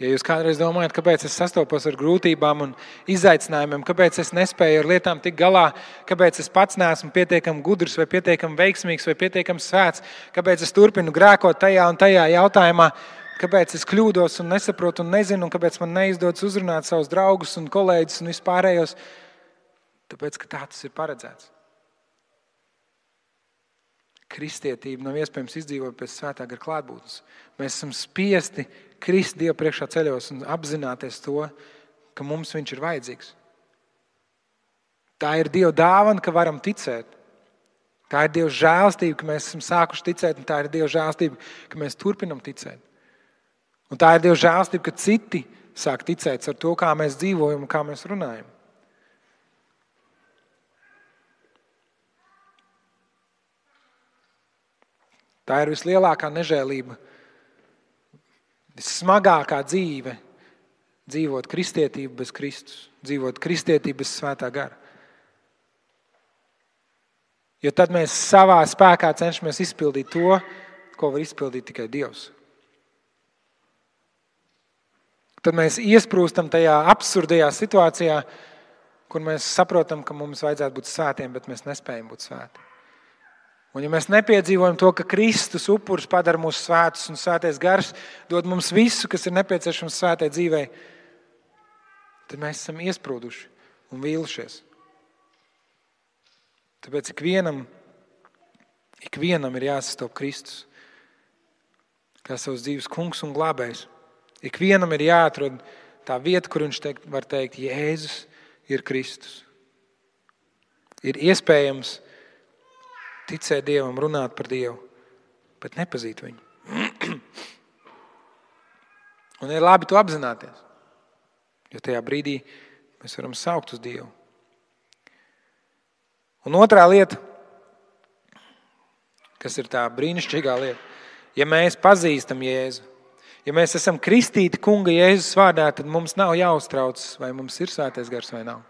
[SPEAKER 1] Ja jūs kādreiz domājat, kāpēc es sastopos ar grūtībām un izaicinājumiem, kāpēc es nespēju ar lietām tikt galā, kāpēc es pats neesmu pietiekami gudrs vai pietiekami veiksmīgs vai pietiekami svēts, kāpēc es turpinu grēkot tajā un tajā jautājumā, kāpēc es kļūdos un nesaprotu un nezinu, un kāpēc man neizdodas uzrunāt savus draugus un kolēģus un vispārējos, tāpēc, ka tā tas ir paredzēts. Kristietība nav iespējams izdzīvot pēc svētā gara klātbūtnes. Mēs esam spiesti krist Dievu priekšā ceļos un apzināties to, ka mums viņš ir vajadzīgs. Tā ir Dieva dāvana, ka varam ticēt. Tā ir Dieva žēlastība, ka mēs esam sākuši ticēt, un tā ir Dieva žēlastība, ka mēs turpinam ticēt. Un tā ir Dieva žēlastība, ka citi sāk ticēt ar to, kā mēs dzīvojam un kā mēs runājam. Tā ir vislielākā nežēlība, vissmagākā dzīve dzīvot kristietību bez Kristus, dzīvot kristietību bez svētā gara. Jo tad mēs savā spēkā cenšamies izpildīt to, ko var izpildīt tikai Dievs. Tad mēs iesprūstam tajā absurdajā situācijā, kur mēs saprotam, ka mums vajadzētu būt svētiem, bet mēs nespējam būt svēti. Un ja mēs nepiedzīvojam to, ka Kristus upuris padara mūs svētus un svētais gars dod mums visu, kas ir nepieciešams svētai dzīvei, tad mēs esam iesprūduši un vīlušies. Tāpēc ikvienam ir jāsastop Kristus kā savas dzīves kungs un glābējs. Ikvienam ir jāatrod tā vieta, kur viņš var teikt, Jēzus ir Kristus. Ir iespējams ticēt Dievam, runāt par Dievu, bet nepazīt viņu. Un ir labi to apzināties, jo tajā brīdī mēs varam saukt uz Dievu. Un otrā lieta, kas ir tā brīnišķīgā lieta, ja mēs pazīstam Jēzu, ja mēs esam kristīti Kunga Jēzus vārdā, tad mums nav jāuztraucas, vai mums ir svētais gars vai nav.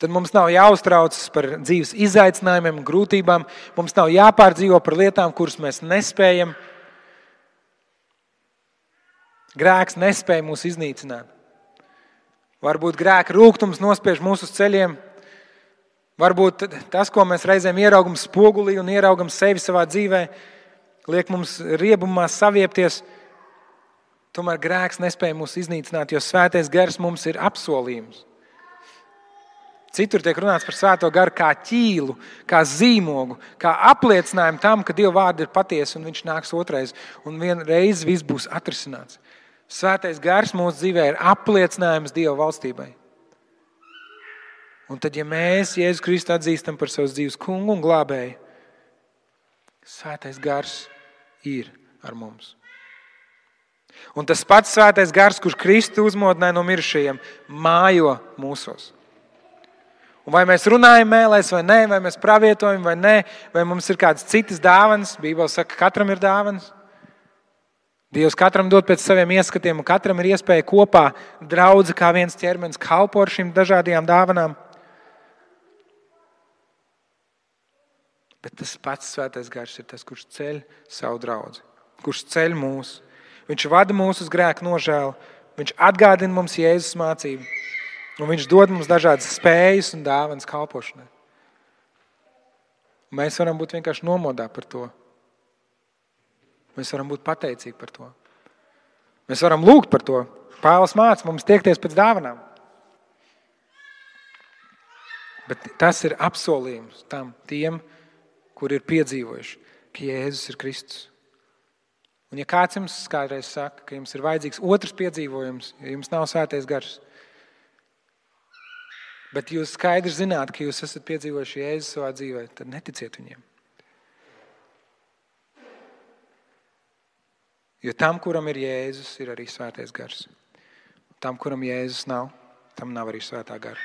[SPEAKER 1] Tad mums nav jāuztraucas par dzīves izaicinājumiem, grūtībām. Mums nav jāpārdzīvo par lietām, kuras mēs nespējam. Grēks nespēja mūs iznīcināt. Varbūt grēka rūgtums nospiež mūsu uz ceļiem. Varbūt tas, ko mēs reizēm ieraugam spogulī un ieraugam sevi savā dzīvē, liek mums riebumā saviepties. Tomēr grēks nespēja mūs iznīcināt, jo svētais gars mums ir apsolījums. Citur tiek runāts par svēto garu kā ķīlu, kā zīmogu, kā apliecinājumu tam, ka Dieva vārdi ir patiesi un viņš nāks otrais. Un vienreiz viss būs atrisināts. Svētais gars mūsu dzīvē ir apliecinājums Dieva valstībai. Un tad, ja mēs Jēzu Kristu atzīstam par savas dzīves kungu un glābēju, svētais gars ir ar mums. Un tas pats svētais gars, kurš Kristu uzmodināja no mirušajiem, mājo mūsos. Un vai mēs runājam mēlēs vai nē, vai mēs pravietojam vai nē, vai mums ir kādas citas dāvanas, Bībele saka, ka katram ir dāvanas. Dievs katram dod pēc saviem ieskatiem, un katram ir iespēja kopā draudze kā viens ķermenis kalpo ar šīm dažādajām dāvanām. Bet tas pats svētais gars ir tas, kurš ceļ savu draudzi, kurš ceļ mūs. Viņš vada mūs uz grēku nožēlu, viņš atgādina mums Jēzus mācību. Un viņš dod mums dažādas spējas un dāvanas kalpošanai. Mēs varam būt vienkārši nomodā par to. Mēs varam būt pateicīgi par to. Mēs varam lūgt par to. Pāvils māca mums tiekties pēc dāvanām. Bet tas ir apsolījums tiem, kuri ir piedzīvojuši, ka Jēzus ir Kristus. Un ja kāds jums kādreiz saka, ka jums ir vajadzīgs otrs piedzīvojums, ja jums nav svētais gars, bet jūs skaidri zināt, ka jūs esat piedzīvojuši Jēzu savā dzīvē, tad neticiet viņiem. Jo tam, kuram ir Jēzus, ir arī svētais gars. Tam, kuram Jēzus nav, tam nav arī svētā gara.